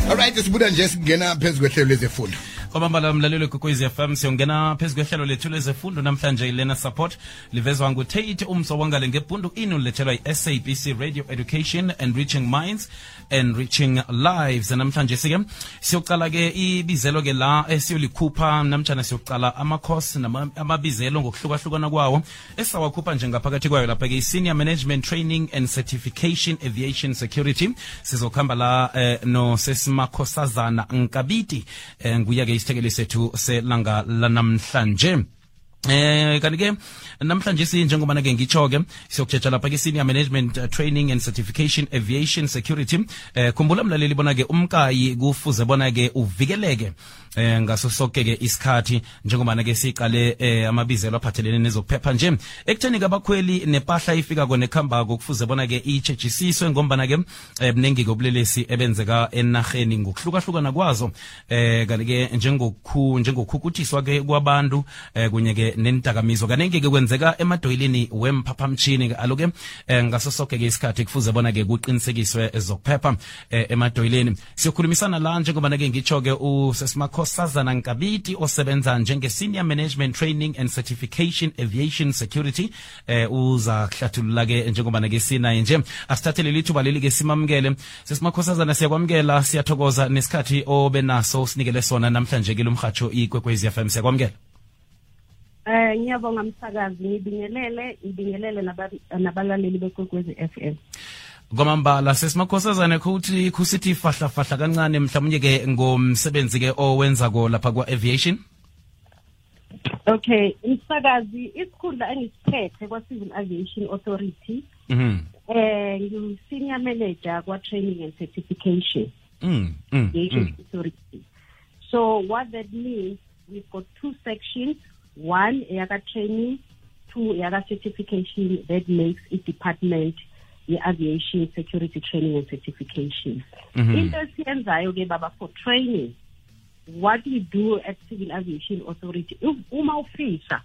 Alright, sibuda nje singena phezulu kwehlelo lezefundo. Kwamambala mlalelo Kwekwezi FM siyongena phezulu kwehlelo lethu lezefundo namhlanje ilena support livezwa nguTate umsobongale ngebhundu inu lethelwa iSABC Radio Education Enriching Minds Enriching Lives. Namhlanje sike siyoqala ke ibizelo ke la esiyolikhupha namtjana siyoqala ama-course amabizelo ngokuhlukahlukana kwawo esawakhupha njengaphakathi kwayo lapha ke Senior Management Training and Certification Aviation Security. Sizokhamba la no sesimakhosazana Nkabiti nguya ke isithekeli sethu selanga lanamhlanje. Kanti ke namhlanje sinjengoba ke ngitsho ke siyokujeja lapha ke Senior Management Training and Certification Aviation Security. Khumbula mlaleli bona ke umkayi kufuze bona ke uvikeleke ngaso sonke ke isikhathi njengoba ke siqale amabizelo aphathelene nezokuphepha nje ekutheni kabakhweli nepahla ifika kone khamba kufuze bona ke ichechisiswe ngombana ke mnengi kobulelesi ebenzeka enarheni ngokuhlukahlukana kwazo kanti ke njengokukhukutiswa ke kwabantu kunye ke nentakamizwa kanenge ke kwenzeka emadoyilini wemphaphamtshini ke aloke ngaso sonke ke isikhathi kufuze bona ke kuqinisekiswe ezokuphepha emadoyilini. Siyokhulumisana la njengoba ke ngitsho ke usesimakhosazana Nkabiti osebenza njenge Senior Management Training and Certification Aviation Security uza kuhlathulula ke njengoba ke sinaye nje asithathele lithuba leli ke simamukele sesimakhosazana. Siyakwamukela, siyathokoza nesikhathi obenaso sinikele sona namhlanje ke lumhatsho iKwekwezi FM. Siyakwamukela. Ngiyabonga msakazi, ngibingelele nabalaleli beKwekwezi FM. Kwamambala sesimakhosazana ukuthi kusithi fahla kancane mhlawumnye ke ngomsebenzi ke owenza ko lapha kwa aviation. Okay, msakazi, isikhundla engisiphethe kwa Civil Aviation Authority. Ngi Senior Manager kwa Training and Certification. Aviation Authority. So what that means, we've got two sections. One, yaga training, two, yaga certification. That makes it department, the aviation security training and certification. In the CNZI, baba, for training, what we do at Civil Aviation Authority, uma ufisa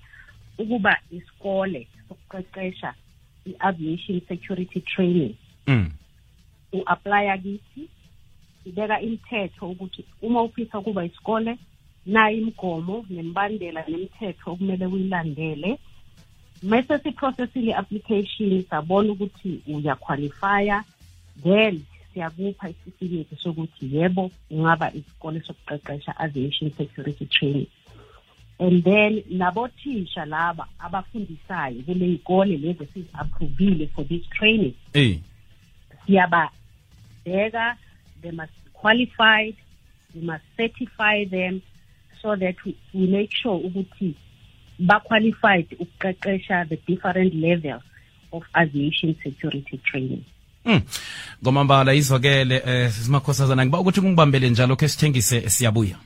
ukuba iskole sokuqeqesha i-aviation security training, u-apply akithi, ibeka imithetho ukuthi uma ufisa ukuba iskole na imgomo nembandela nemithetho okumele uyilandele. Mase siprocessile application sabona ukuthi uyaqualifya, then siyakupha isitifiketi sokuthi yebo ungaba isikole sokuqeqesha aviation security training. And then nabothisha laba abafundisayo kule ikole lezi sizapprovile for this training, siyaba beka, they must be qualified, we must certify them so that we make sure ukuthi ba qualified ukuqeqesha the different levels of aviation security training. Ngomambala izwakele simakhosazana ngiba ukuthi kungibambele njalo ke sithengise siyabuya.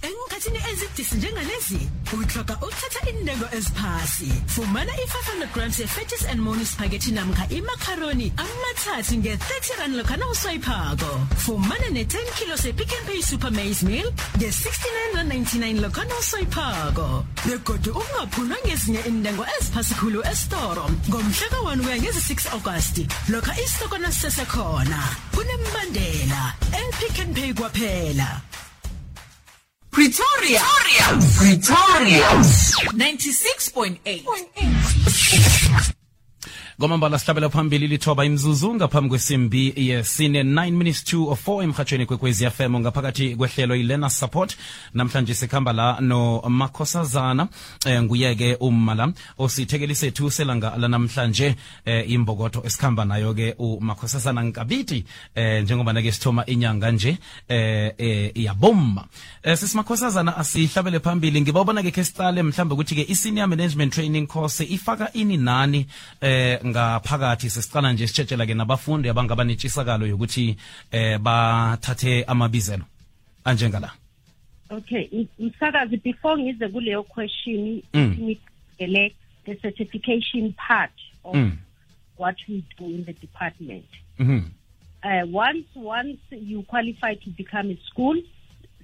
Enkathini ezidisi njengalezi uthoka uthatha indengo eziphasi. Fumana i500 grams ye-Fetus and Moni spaghetti namkha imacaroni amathathu nge-30 lokhana uswayiphako. Fumana ne-10 kilos ye-Pick n Pay Super Maize Meal nge-69.99 lokhana uswayiphako. Begodu ungaphulwa ngezinye indengo eziphasi khulu esitoro ngomhlaka 1 kuya ngezi-6 August lokha isitokona sisesekhona. Kunembandela el-Pick n Pay kwaphela. Pretoria 96.8. Ngomambala sihlabela phambili lithoba imzuzu ngaphambi kwesimbi yesine 9 minutes to 4 emhathweni Kwekwezi FM ngaphakathi kwehlelo ilena support. Namhlanje sikhamba la no makhosazana nguyeke umala osithekeli sethu selanga lanamhlanje imbokotho esikhamba nayo ke umakhosazana Nkabiti njengoba ke sithoma inyanga nje iyabomma. Sisimakhosazana asihlabele phambili ngibabona ke kesitale mhlambe ukuthi ke i-Senior Management Training course ifaka ini nani ngaphakathi. Sesiqala nje sitshetshelwa ke nabafundi abangaba netshisakalo yokuthi bathathe amabizelo anjengala. Okay, msakazi, before ngize kuleyo question select the certification part of what we do in the department. Once you qualify to become a school,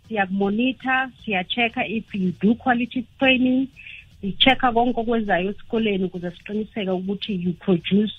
siyakumonitor, siyachecka if you do quality training, sichecka konke okwenzayo esikoleni ukuze siqiniseke ukuthi you produce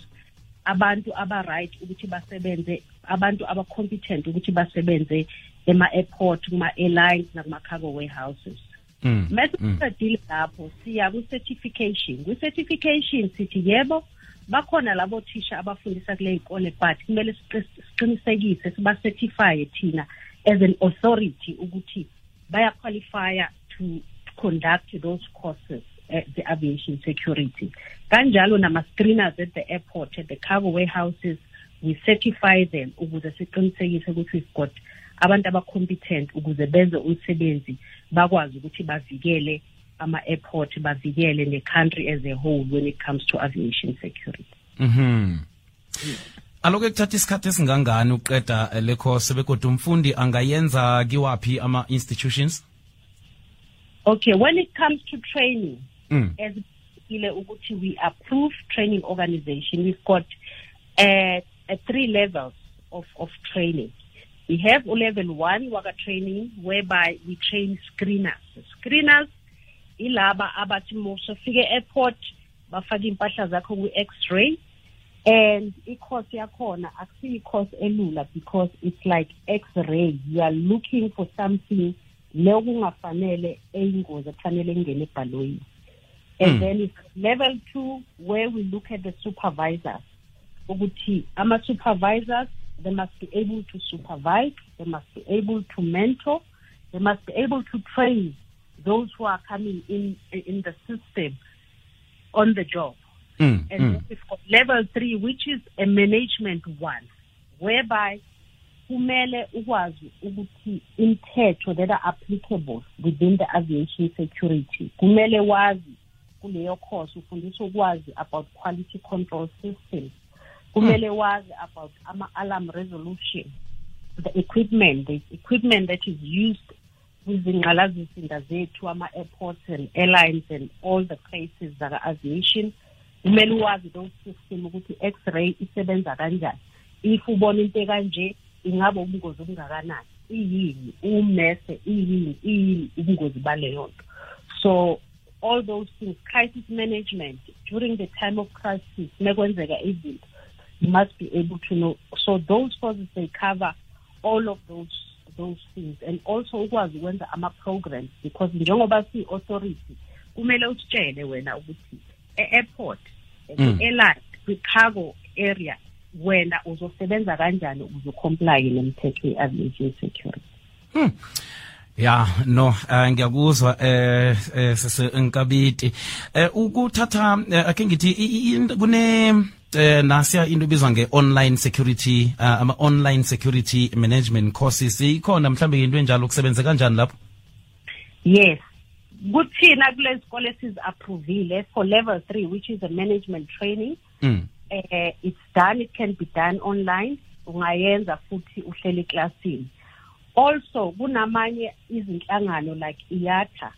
abantu aba right ukuthi basebenze abantu abacompetent ukuthi basebenze ema-airport, kuma-airlines, nakuma-cargo warehouses. Mase lapho siya ku-certification. Kwi-certification sithi yebo, bakhona labo thisha abafundisa kule ikole, but kumele siqinisekise siba-certify thina as an authority ukuthi baya-qualify to conduct those courses at the aviation security. Kanjalo nama-screeners at the airport, at the cargo warehouses, we certify them ukuze siqinisekise ukuthi we've got abantu abacompetent ukuze benze umsebenzi bakwazi ukuthi bavikele ama-airport, bavikele ne-country as a whole when it comes to aviation security. Aloke kuthatha isikhathi esingangani uqeda le course bekodwa umfundi angayenza kiwapi ama-institutions? Okay, when it comes to training, as we approve training organization, we've got 3 levels of training. We have level 1 waka training whereby we train screeners. Screeners ilaba abathi mosofike airport bafaka impahla zakho ku-X-ray, and i-course yakhona akusiyi course elula because it's like X-ray. You are looking for something leyo kungafanele eyingozi kufanele ingene ebhalweni. And then it's level 2 where we look at the supervisors. Ukuthi ama-supervisors, they must be able to supervise, they must be able to mentor, they must be able to train those who are coming in the system on the job. And then we've got level 3, which is a management one, whereby kumele ukwazi ukuthi imithetho that are applicable within the aviation security. Kumele wazi kuleyo course ufundiswa ukwazi about quality control systems. Kumele wazi about alarm resolution, the equipment that is used kwizingqalasizinda zethu, ama-airports and airlines and all the places that are aviation. Kumele wazi those system ukuthi X-ray isebenza kanjani. If ubona into kanje ingabe ubungozi obungakanani, iyini umese, iyini ubungozi baleyo nto. So all those things, crisis management during the time of crisis, mekwenzeka izinto, you must be able to know. So those courses, they cover all of those things, and also ukwazi ukwenza ama-programs, because njengoba si-authority kumele usitshele wena ukuthi e-airport, e-airline, kwi-cargo area wena uzosebenza kanjani ukuze comply nemithetho ye-aviation security. Ya no ngiyakuzwa Nkabiti ukuthatha ake ngithi kune nasiya into ebizwa nge-online security ama-online security management courses ikhona mhlambe into enjalo kusebenza kanjani lapho? Yes, kuthina kule sikole sizi-approvile for level 3, which is a management training. It's done, it can be done online, ungayenza futhi uhleli eklasini. Also kunamanye izinhlangano like IATA,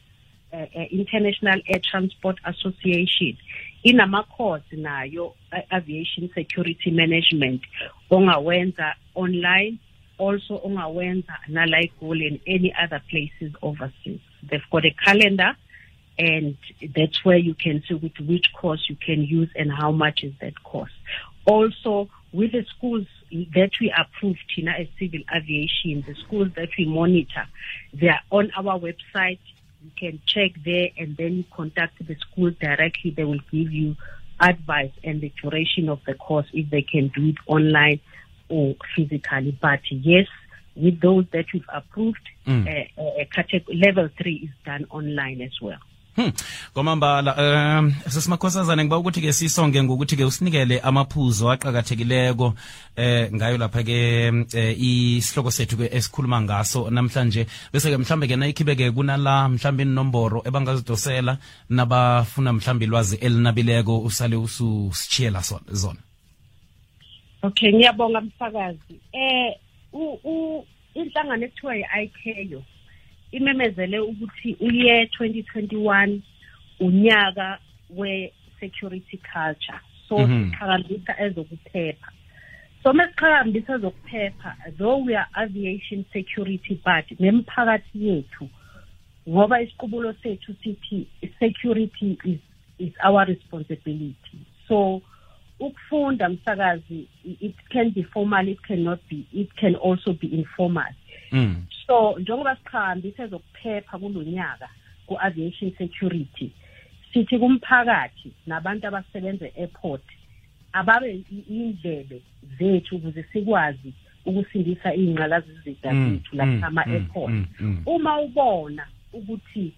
International Air Transport Association, inama-course nayo aviation security management ongawenza online, also ongawenza nala eGoli and any other places overseas. They've got a calendar, and that's where you can see which course you can use and how much is that course. Also, with the schools that we approve, Tina, as civil aviation, the schools that we monitor, they are on our website. You can check there, and then you contact the school directly. They will give you advice and the duration of the course, if they can do it online or physically. But yes, with those that we've approved, level 3 is done online as well. Komambala sesimakhosazana ngiba ukuthi ke sisonge ngokuthi ke usinikele amaphuzo aqhakathekileko ngayo lapha ke isihloko sethu ke esikhuluma ngaso namhlanje, bese ke mhlambe ke nayikhibeke kunala mhlambe inomboro ebangazidosela nabafuna mhlambe ilwazi elinabileko usale ususichiyela zona. Okay, ngiyabonga mfakazi. Inhlangano ekuthiwa yi-ICAO imemezele ukuthi uye 2021 unyaka we-security culture. So siqhakambisa ezokuphepha. So mesiqhakambisa ezokuphepha, though we are aviation security, but nemphakathi yethu, ngoba isiqubulo sethu sithi security is our responsibility. So ukufunda msakazi, it can be formal, it can also be informal. So njengoba sikhambise zokuphepha kulonyaka ku-aviation security, sithi kumphakathi nabantu abasebenza e-airport ababe indlebe zethu ukuze sikwazi ukusindisa ingqalazizida zethu lapha ama-airport. Uma ubona ukuthi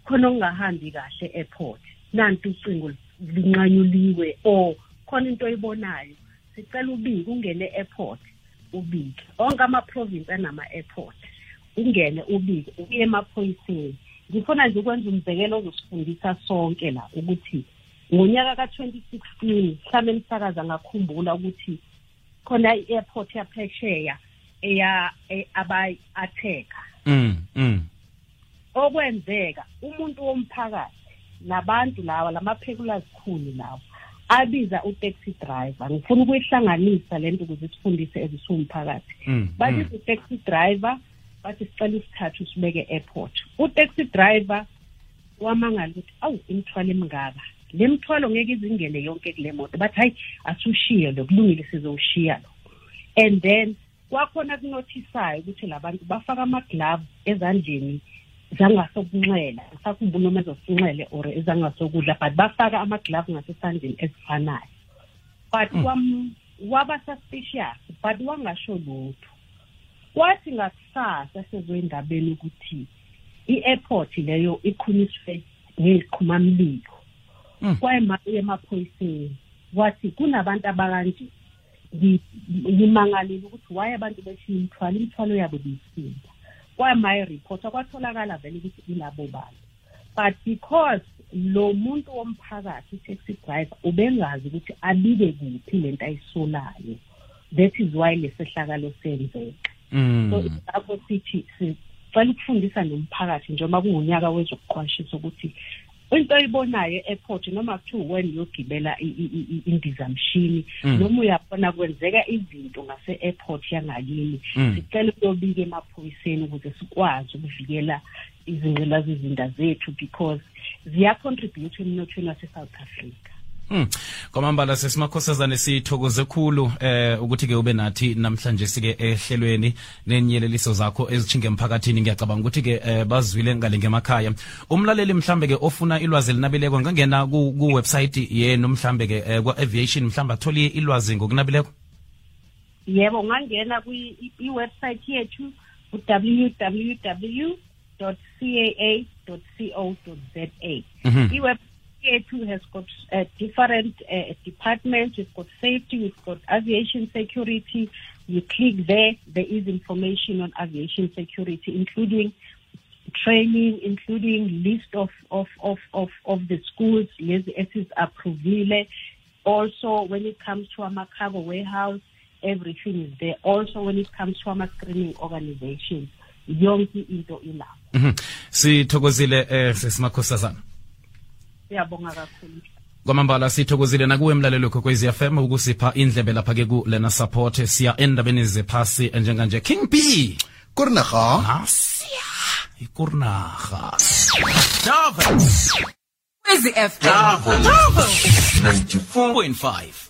khona ungahambi kahle e-airport, nanti ucingo linqanyuliwe or khona into oyibonayo, sicela ubike, ungene e-airport ubike. Onke ama-province anama-airport, ungene ubike, uye emaphoyiseni. Ngifuna nje ukwenza umzekelo ozosifundisa sonke la ukuthi ngonyaka ka-2016 mhlawumbe emsakaza ngakhumbula ukuthi khona i-airport yaphesheya abayi-atheka. Okwenzeka umuntu womphakathi nabantu lawa lamaphekula zikhulu lawa abiza u-taxi driver. Ngifuna ukuyihlanganisa lento ukuze sifundise ezisumphakathi. Babiza u-taxi driver bathi sicela isithathu sibeke e-airport. U-taxi driver wamangala ukuthi awu imithwalo emingaka, le mthwalo ngeke izingene yonke kule moto, bathi hayi asushiye lo, kulungile sizowushiya lo. And then kwakhona kunothisayo ukuthi labantu bafaka ama-gloves ezandleni zangasokunxele, ngisakhumbula noma ezosinxele or ezangasokudla, but bafaka ama-gloves ngasesandleni ezifanayo. But waba suspicious, but wangasho lutho. Kwathi ngakusasa sezoyindabeni ukuthi i-airport leyo ikhunyiswe ngeziqhumamlilo. Kwayemaye emaphoyiseni wathi kunabantu abakanje, ngimangalile ukuthi waye abantu beshiya imithwalo yabo bisinda. Kwayemaye report kwatholakala vele ukuthi ilabo bantu, but because lo muntu womphakathi taxi driver ubengazi ukuthi abike kuphi lento ayisolayo, that is why lesehlakalo senzeka. So lapho sithi sicela ukufundisa nomphakathi njengoba kungonyaka wezokuqwashisa ukuthi into oyibonayo e-airport noma kuthiwa when uyogibela indizamshini noma uyabona kwenzeka izinto ngase-airport yangakini, sicela ukuyobika emaphoyiseni ukuze sikwazi ukuvikela izingqalasizinda zethu because ziyacontribute emnothweni wase-South Africa. Kwamambala sesimakhosazane sithokoze khulu ukuthi ke ube nathi namhlanje sike ehlelweni nenyeleliso zakho ezichinge emphakathini. Ngiyacabanga ukuthi ke bazwile ngale ngemakhaya. Umlaleli mhlambe ke ofuna ilwazi elinabileko ngangena ku website yenu mhlambe ke kwa aviation mhlambe atholi ilwazi ngokunabileko. Yebo, ngangena kwi website yethu www.caa.co.za. It has got different departments. We've got safety, we've got aviation security. You click there is information on aviation security, including training, including list of the schools, is approvile. Also, when it comes to a cargo warehouse, everything is there. Also, when it comes to a screening organizations, yonke into ilapho. Sithokozile sesimakhosazana. Siyabonga kakhulu. Kwamambala sithokozile nakuwe mlalelo Kokwezi FM ukusipha indlebe lapha ke ku Lena Support. Siya endabeni zephasi njenganje King B Kurnaga Asiya ikurnaga Davos Kokwezi FM 94.5